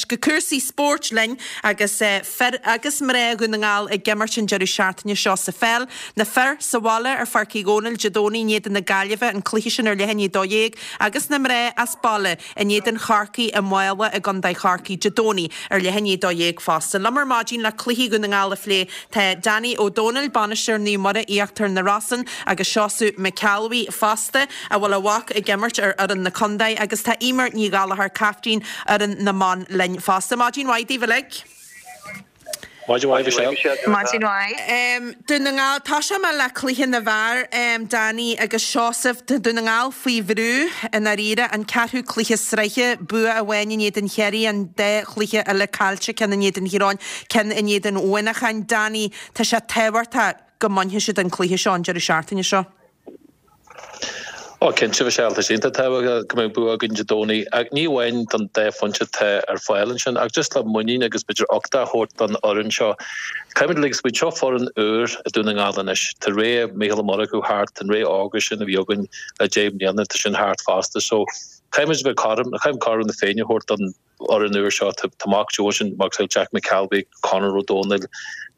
go cúrsaí spóirt linn agus fir agus mná Dhún na nGall ag imirt an deireadh seachtaine seo sa pheil. Na fir sa bhaile ar Pháirc Uí Dhónaill Dé Domhnaigh in éadan na Gaillimhe, an cluiche sin ar leath i ndiaidh 12, agus na mná as baile in éadan Chorcaí i Mála i gContae Chorcaí Dé Domhnaigh ar leath i ndiaidh 12 fosta. Liom ar maidin le cluichí Dhún na nGall a phlé tá Danny Ó Dónaill, bainisteoir Naomh Muire Íochtar na Rosann agus Seosamh McElwee fosta, a bhfuil a mhac ag imirt ar fhoireann na contae agus tá Eimear Ní Ghallchóir, caiftín fhoireann na mban linn fosta. Maidin mhaith daoibh uilig. Maidin mhaith, Michelle. Maidin mhaith. Dún na nGall, Tosóidh mé le cluiche na bhfear, Danny agus Seosamh. Tá Dún na nGall faoi bhrú i ndáiríre, an ceathrú cluiche sraithe, bua amháin in éadan Chiarraí, an dá chluiche eile caillte, ceann in éadan Thír Eoghain, ceann in éadan Mhuineacháin. Danny, tá sé tábhachtach go mbainfidh siad an cluiche seo an deireadh seachtaine seo. Ó, cinnte, Michelle, tá sé iontach tábhachtach go mbeadh bua againn Dé Domhnaigh, ach ní amháin don dá phointe atá ar fáil ansin, ach just le muinín agus b'fhéidir uchtach a thabhairt don fhoireann seo. Caithfimid uilig smaoineamh, seo foireann úr i Dún na nGall anois. Tá ré Mícheál Ó Murchú thart, an ré órga sin a bhí againn le 10 mbliana, tá sin thart fosta. So, caithfimid a bheith cothrom, caithfimid cothrom na Féinne a thabhairt don fhoireann úr seo. Tá Mac Joe ansin, macasamhail Jack McElwee, Conor Ó Dónaill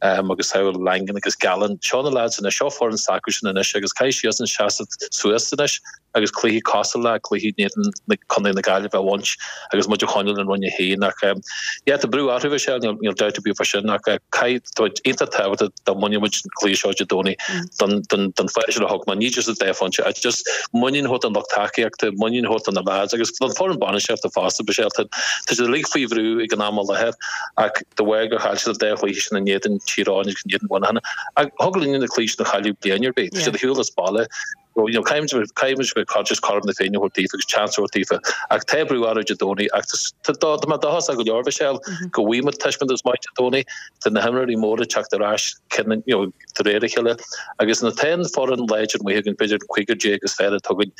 agus samhail Langan agus Gallen. Seo na lads anois, seo foireann s'acusan anois agus caithfidh siadsan seasamh suas anois agus cluichí cosúil le cluichí in éadan na Contae na Gaillimhe a bhaint agus muid a choinneáil in Roinn 1. Ach yeah, tá brú orthu Michelle, níl níl dabht ar bith fá sin ach caithfidh, tá iontach tábhachtach dá mbainfeadh muid an cluiche seo Dé Domhnaigh don don don fáth sin a thug mé, ní just an dá phointe ach just muinín a thabhairt don lucht tacaíochta, muinín a thabhairt do na lads agus don foireann bainistíochta fosta, Michelle. Tá tá siad uilig faoi bhrú ag an am i láthair ach de bharr gur chaill siad an dá chluiche sin in éadan Tír Eoghain agus in éadan Mhuineacháin ach thig linn na cluichí sin a chailleadh bliain ar bith. Tá siad ar shiúl as baile. So, you know, caithfimid caithfimid bheith just cothrom na Féinne a thabhairt daofa agus chance a thabhairt daofa. Ach tá brú orthu Dé Domhnaigh ach tá tá mé dóchasach go leor Michelle go bhfaighidh muid taispeántas maith Dé Domhnaigh. Tá na himreoirí móra ag teacht ar ais you know, de réir a chéile agus nuair atá an foireann láidir amuigh againn, b'fhéidir an cúigear déag is fearr atá againn,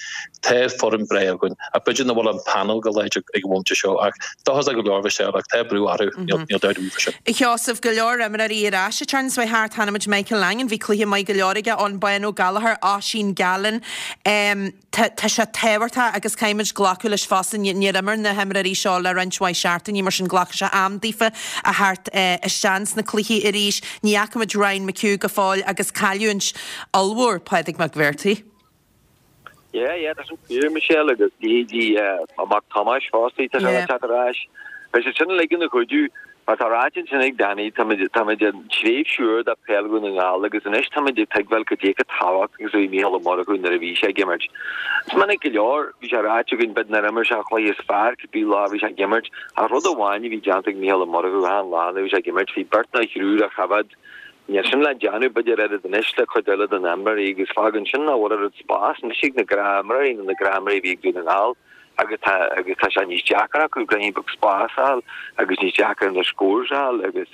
tá foireann breá againn ach b'fhéidir nach bhfuil an panel go láidir ag an bhomaite seo ach dóchasach go leor Michelle ach tá brú orthu, níl dabht ar bith faoi sin. A Sheosaimh, go leor imreoirí ar ais an tseachtain seo thart, chonaic muid Michael Langan, bhí cluiche maith go leor aige, Eoghan Bán Ó Gallchóir, Oisín Gallen. Tá sé tábhachtach agus caithfimid glacadh leis fosta, níor imir na himreoirí seo le roinnt mhaith seachtainí, mar sin glacfaidh sé am daofa a theacht isteach sna cluichí arís. Ní fhaca muid Ryan McHugh go fóill agus cailliúint ollmhór Pádraig Mac Bhéartaigh. Yeah, yeah, tá sin fíor, Michelle, agus leithéidí a mac Tomás fosta, tá sé le teacht ar ais. Beidh siad sin uilig ina chuidiú. Mar tá ráite ansin ag Danny, táimid, táimid i dtréimhse úr de peil Dhún na nGall agus anois táimid ag tuigbheáil cad é chomh tábhachtach agus a bhí Mícheál Ó Murchú nuair a bhí sé ag imirt. Is minic go leor, bhí sé ráite againn, b'fhéidir nár imir sé an chluiche is fearr cibé lá a bhí sé ag imirt, ach rud amháin a bhí déanta ag Mícheál Ó Murchú achan lá nuair a bhí sé ag imirt, bhí beirt nó thriúr á choimhéad. Níl sin le déanamh b'fhéidir oiread anois le cuid eile de na imreoirí agus fágann sin nach bhfuil oiread spás anois ag na gnáthimreoirí nó na gnáthimreoirí a bhí ag Dún na nGall. agus tá agus tá sé níos deacra acu ruainnín beag spás a fháil agus níos deacra na scores a fháil agus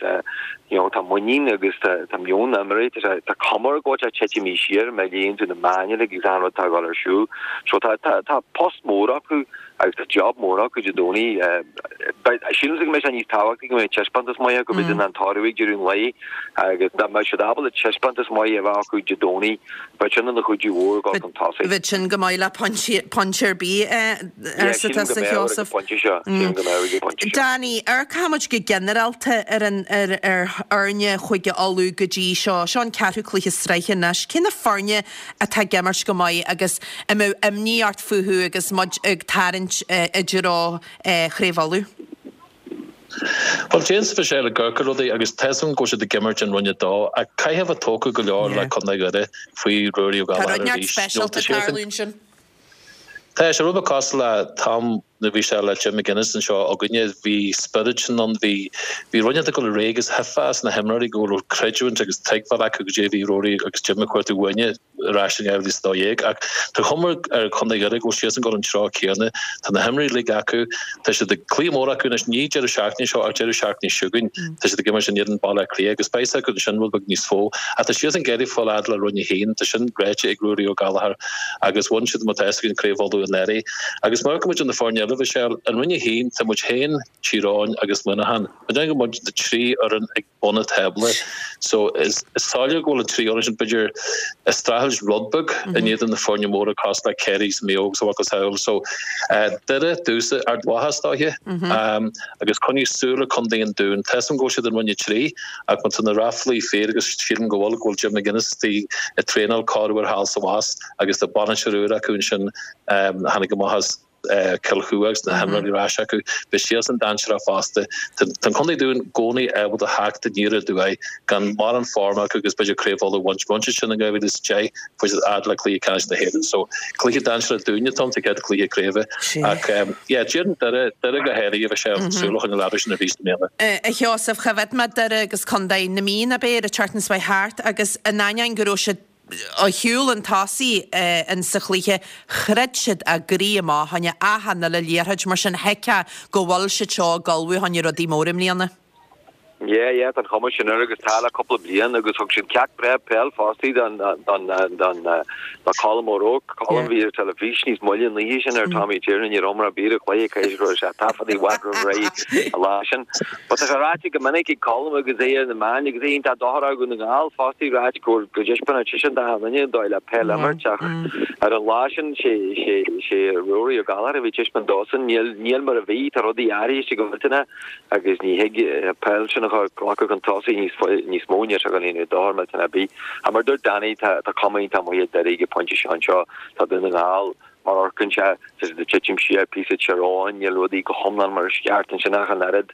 you know tá muinín agus tá tá meon na n-imreoirí tá sé tá cuma air go bhfuil sé titimí siar má léann tú na meáin uilig agus an rud atá ag dul ar siúl. So tá tá tá post mór acu agus tá job mór acu Dé Domhnaigh. Sílimse go mbeidh sé níos tábhachtaí go mbeidh taispeántas maith acu b'fhéidir ná an toradh ag deireadh an lae agus dá mbeadh siad ábalta taispeántas maith a bheith acu Dé Domhnaigh Bheadh sin ina chuidiú mhór ag dul chun tosaigh. Bheadh sin go maith le pointe ar bith, arsa tusa, a Sheosaimh. Danny, amharcfaidh muid go ginearálta ar an ar fhoirne Chúige Uladh go dtí seo. Seo an ceathrú cluiche sraithe anois. Cé na foirne atá ag imirt go maith agus a mbeadh imní ort fúthu agus muid ag tarraingt i dtreo Chraobh Uladh? Bhuel, déanfaidh sé le Gurka rudaí agus tá 'fhios agam go bhfuil siad ag imirt in Roinn 2 ach caithfidh a bheith tógtha go leor le Contae Dhoire faoi Ruairí Ó Tá rud Gallchóir neart arís. speisialta ag tarlú ansin. Tá sé rud beag cosúil le t-am nuair a bhí sé le Jim McGuinness anseo againne, bhí spiorad sin ann, bhí bhí rud inteacht ag dul ar aghaidh agus thuigfeá as na himreoirí go raibh creidiúint agus tuigbheáil acu goidé a bhí Ruairí agus Jim ag cuartú uainne. ar ais in 2012 ach tá cuma ar Chontae Dhoire go bhfuil siadsan ag dul an treo céanna. Tá na himreoirí uilig acu, tá siad ag cluiche mór acu anois, ní deireadh seachtaine seo ach deireadh seachtaine seo chugainn. Tá siad ag imirt in éadan Baile Átha Cliath agus beidh a fhios acu ansin rud beag níos mó. Ach tá siadsan ag iarraidh fáil fhad le Roinn 1, tá sin ráite ag Ruairí Ó Gallchóir agus bhain siad má tá fhios againn Craobh Uladh anuraidh. Agus má amharcann muid ar na foirne eile. eile, a Mhichelle, i Roinn 1 tá muid féin, Tír Eoghain agus Muineachán. Má déanann go muid na 3 fhoireann ag bun an tábla. So is soiléir go bhfuil an 3 fhoireann sin b'fhéidir ag streachailt rud beag in éadan na foirne móra cosúil le Ciarraí is Maigh Eo agus a mhacasamhail. So Doire, domhsa, Ard Mhacha is dóiche agus coinnigh súil ar Contae an Dúin. Tá 'fhios a'm go bhfuil siad i Roinn 3 ach má tá na ráflaí fíor agus sílim go bhfuil, go bhfuil Jim McGuinness istigh ag traenáil corruair thall is abhus agus tá bainisteoir úr acu ansin a tháinig amach as Cill Chua agus na himreoirí ar ais acu. Beidh siadsan dainséarach fosta. Tá an Contae Dúin i gcónaí ábalta theacht aniar aduaidh gan mórán form acu agus b'fhéidir Craobh Uladh a bhaint. Bhain siad sin in 2010, fuair siad fhad le cluiche ceannais na hÉireann. So cluiche dainséarach dúinne atá ann sa chéad chluiche craoibhe. Ach yeah, déarfainn Doire, Doire go háirithe, bheadh sé súil a choinneáil orthu sin arís i mbliana. A Sheosaimh, choimhéad mé Doire agus Contae na Mí, ab é, ar an tseachtain seo thart agus in ainneoin go raibh siad ar chúl chun tosaigh in sa chluiche, throid siad a gcroí amach fá choinne achan uile liathróid, mar sin thuigfeá go bhfuil siad seo ag ullmhú fá choinne rudaí móra i mbliana. Yeah, yeah, tá an chuma sin air agus tá le cúpla bliain agus thug siad ceacht breá peil fostaí don don don do Colm O'Rourke. Colm bhí ar teilifís níos moille an oíche sin ar Tommy Tiernan ní raibh mar a bhí ar chluiche cé go raibh sé taifeadta i bhfad roimh ré an lá sin. But tá sé ráite go minic ag Colm agus é ar na meáin agus é iontach dochrach Dhún na nGall fostaí ráite go go dtaispeánann seisean d'achan duine an dóigh le peil a imirt ach ar an lá sin sé sé sé Ruairí Ó Gallchóir a bhí ag taispeáint dósan níl níl mar a bhí tá rudaí athraithe go millteanach agus ní thig an peil sin a ghlacadh chun tosaigh níos mó, níl sé ag déanamh dochar millteanach ar bith. Ach mar a dúirt Danny, tá cuma iontach maith ar Doire ag an phointe seo anseo. Tá Dún na nGall, mar a amharcann sé, tá siad ag titim siar píosa Tír Eoghain, níl rudaí go hiomlán mar is ceart ansin ach an oiread.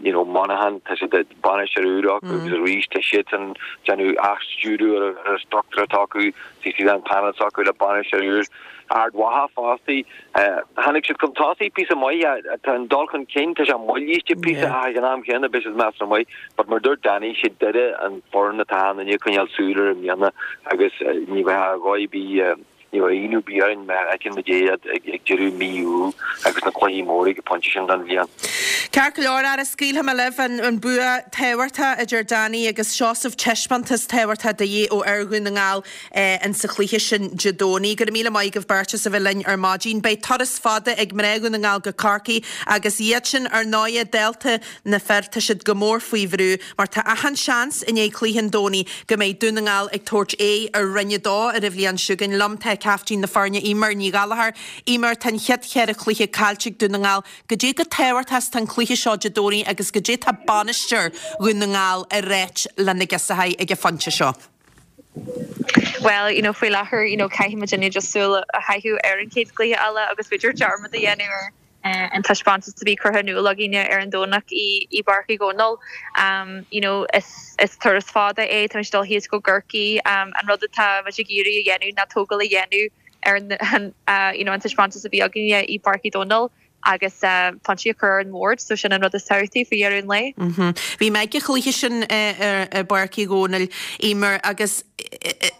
You know, Monaghan, tá siad ag bainisteoir úr acu agus arís tá siadsan ag déanamh athstiúradh ar an struchtúr atá acu, tá siad an panel s'acu le bainisteoir úr. Ard Mhacha fostaí. Tháinig siad chun tosaigh píosa maith, tá an dul chun cinn, tá sé moillithe píosa ach ag an am chéanna beidh siad measartha maith. But mar dúirt Danny, sé Doire an foireann atá achan duine ag coinneáil súil air i mbliana agus ní bheadh a dhóigh ar bith, ní bheadh ionadh ar bith orainn má fheiceann muid iad ag deireadh mí Iúil agus na cluichí móra ag an phointe sin den bhliain. Ceart go leor, ara scaoilfidh mé libh an bua tábhachtach idir Danny agus Seosamh, taispeántas tábhachtach de dhíth ó fhir Dhún na nGall. in sa chluiche sin Dé Domhnaigh. Go raibh míle maith agaibh beirt as a bheith linn ar maidin. Beidh turas fada ag mná Dhún na nGall go Corcaigh agus iad sin, ar ndóighe, dálta na fir, tá siad go mór faoi bhrú mar tá achan seans i ndiaidh cluiche an Domhnaigh go mbeidh Dún na nGall ag tabhairt aghaidh ar Roinn 2 ar an bhliain seo chugainn. Liom tá caiftín na foirne, Eimear Ní Ghallchóir. Eimear, tá an chéad cheithre chluiche caillte ag Dún na nGall. Goidé chomh tábhachtach is tá an cluiche seo Dé Domhnaigh agus goidé tá bainisteoir Dhún na nGall ag ráit le na girseachaí ag an phointe seo. Bhuel, you know, faoi láthair, you know, caithfidh muidinne just súil a chaitheamh ar an chéad chluiche eile agus b'fhéidir dearmad a dhéanamh ar an taispeántas a bhí curtha in iúl againne ar an Domhnach i i bPáirc Uí Dhónaill. You know, is is turas fada é, tá muid ag dul thíos go gCorcaigh. An rud atá muid ag iarraidh a dhéanamh ná tógáil a dhéanamh ar an you know, an taispeántas a bhí againne i bPáirc Uí Dhónaill. agus pointí a chur ar an mbord, so sin an rud is tábhachtaí faoi dheireadh an lae. Bhí mé ag an chluiche sin i bPáirc Uí Dhónaill, Eimear, agus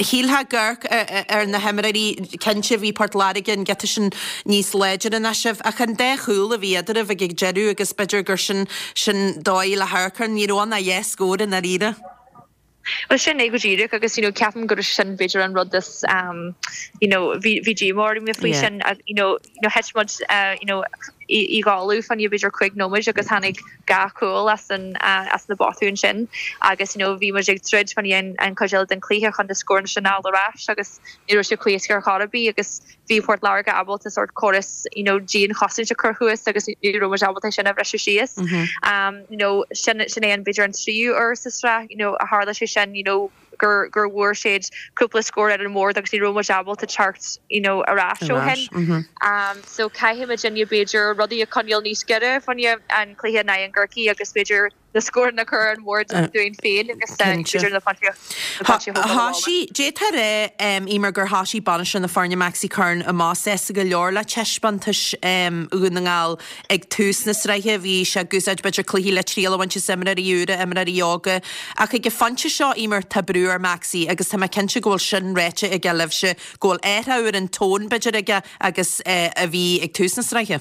shílfeá ag amharc ar na himreoirí, cinnte bhí Port Láirge an giota sin níos láidre ná sibh, ach an dá chúl a bhí eadraibh ag an deireadh agus b'fhéidir gur sin sin dóigh le hamharc air, ní raibh ann ach dhá scór i ndáiríre. Bhuel sin é go díreach agus you know ceapaim gur sin b'fhéidir an rud is um you know bhí bhí díomá orm faoi sin you know you know thit muid uh you know i i gcodladh fá choinne b'fhéidir 5 nóiméad agus tháinig dhá chúl as an uh as na botúin sin agus you know bhí muid ag troid fá choinne an an chuid eile den chluiche chun na scóranna sin a fháil ar ais agus ní raibh sé chomh héasca ar chor ar bith agus bhí Port Láirge ábalta sórt córas you know dianchosaint a chur thuas agus ní raibh muid ábalta é sin a bhriseadh síos. Um you know sin sin é an b'fhéidir an tríú uair sa sraith you know a tharla sé sin you know gur gur bhfuair siad cúpla scór ar an mbord agus ní raibh muid ábalta teacht you know ar ais ó shin. Um so caithfidh muidinne b'fhéidir rudaí a choinneáil níos giorra fá choinne an cluiche in aghaidh an gCorcaigh agus b'fhéidir na scóranna a chur ar an mbord dúinn féin agus b'fhéidir na pointí a thógáil abhaile. Thoisigh, d'fhéadfá a rá, Eimear, gur thoisigh bainisteoir na foirne Maxi Curran amach sásta go leor le taispeántais Dhún na nGall ag tús na sraithe. Bhí sé ag úsáid b'fhéidir cluichí le triail a bhaint as imreoirí úra, imreoirí óga. Ach ag an phointe seo, Eimear, tá brú ar Maxi agus tá mé cinnte go bhfuil sin ráite aige libhse, go bhfuil athrú ar an tón b'fhéidir aige agus a bhí ag tús na sraithe.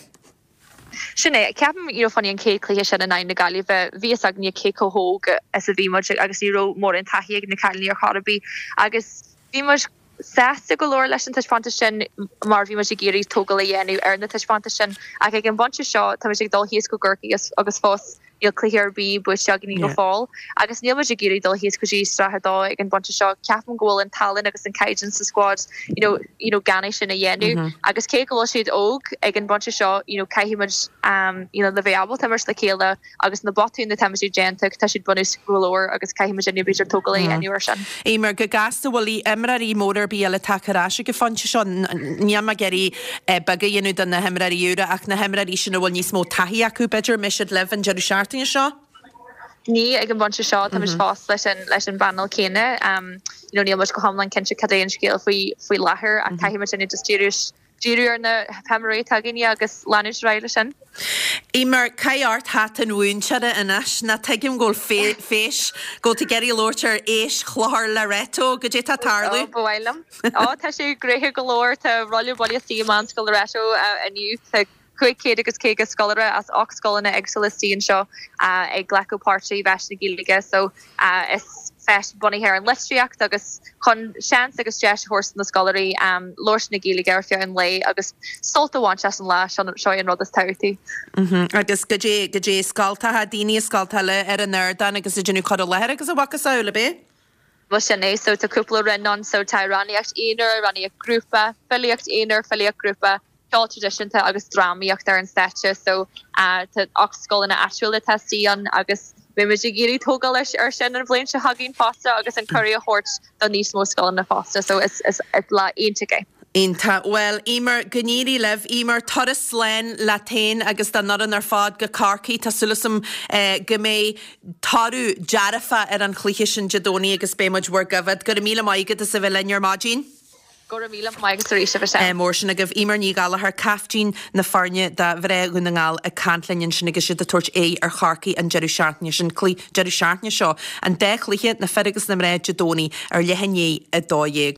Sin é. Ceapaim, you know, fá choinne an chéad chluiche sin in aghaidh na Gaillimhe, bhí fhios againne cé chomh hóg is a bhí muid agus ní raibh mórán taithí ag na cailíní ar chor ar bith agus bhí muid. sásta go leor leis an taispeántas sin mar bhí muid ag iarraidh tógáil a dhéanamh ar na taispeántais sin ach ag an bpointe seo tá muid ag dul thíos go gCorcaigh agus fós níl cluiche ar bith buaite againn go fóill agus níl muid ag iarraidh dul thíos go dtí Sraith 2 ag an bpointe seo. Ceapaim go bhfuil an tallann agus an caighdeán sa squad you know, you know, gan é sin a dhéanamh agus cé go bhfuil siad óg ag an bpointe seo you know, caithfidh muid um, you know, le bheith ábalta imirt le chéile agus na botúin atá muid ag déanamh, tá siad bunúsach go leor agus caithfidh muid b'fhéidir tógáil a dhéanamh ar sin. Eimear, go gasta, bhfuil imreoirí móra ar bith eile tagtha ar ais ag an phointe seo? Níl mé ag iarraidh beag a dhéanamh de na himreoirí úra ach na himreoirí sin a bhfuil níos mó taithí acu, b'fhéidir, an mbeidh siad libh an deireadh seachtaine seo? Ní ag an bpointe seo, tá muid fós leis an leis an bpainéal céanna. You know, níl muid go hiomlán cinnte cad é an scéal faoi faoi láthair ach caithfidh muid just díriú díriú ar na himreoirí atá againne agus leanúint ar aghaidh leis sin. Eimear, caith ort hata an mhúinteora anois, ná tuigim go bhfuil feis, go bhfuil tú ag iarraidh labhairt ar Fheis Chlochar Loreto, goidé tá ag tarlú? Ó, ba mhaith liom. Ó, tá sé gnoitheach go leor, tá rolla buile istigh i Meánscoil Loreto inniu. Tá 500 agus 50 scoláire as 8 scoileanna éagsúla istigh anseo ag glacadh páirt i bhFeis na Gaeilge so is feis bunaithe ar an litríocht agus chun seans agus deis a thabhairt do na scoláirí labhairt na Gaeilge ar feadh an lae agus sult a bhaint as an lá, seo é an rud is tábhachtaí. Agus goidé, goidé scoltacha, daoine i scoltacha eile ar an ardán agus ag déanamh cur i láthair agus a mhacasamhail, ab é? Bhuel sin é, so tá cúpla roinn ann, so tá amhránaíocht aonair, amhránaíocht grúpa, filíocht aonair, filíocht grúpa, ceol traidisiúnta agus drámaíocht ar an stáitse so tá 8 scoileanna áitiúla atá istigh ann agus beidh muid ag iarraidh tógáil ar sin an bhliain seo chugainn fosta agus an cuireadh a thabhairt do níos mó scoileanna fosta so is lá iontach é. Iontach. Bhuel, Eimear, go n-éirí libh. Eimear, turas slán leat féin agus don fhoireann ar fad go Corcaigh. Tá súil agam go mbeidh toradh dearfach ar an chluiche sin Dé Domhnaigh agus beidh muid bhur gcoimhéad. Go raibh míle maith agat as a bheith linn ar maidin. Go raibh míle maith agat arís, a Mhichelle. Mór sin agaibh. Eimear Ní Ghallchóir, caiftín na foirne do mhná Dhún na nGall ag caint linn ansin agus iad ag tabhairt aghaidh ar Chorcaigh an deireadh seachtaine sin, deireadh seachtaine seo. An dá chluiche, na fir agus na mná, Dé Domhnaigh ar leath i ndiaidh 12.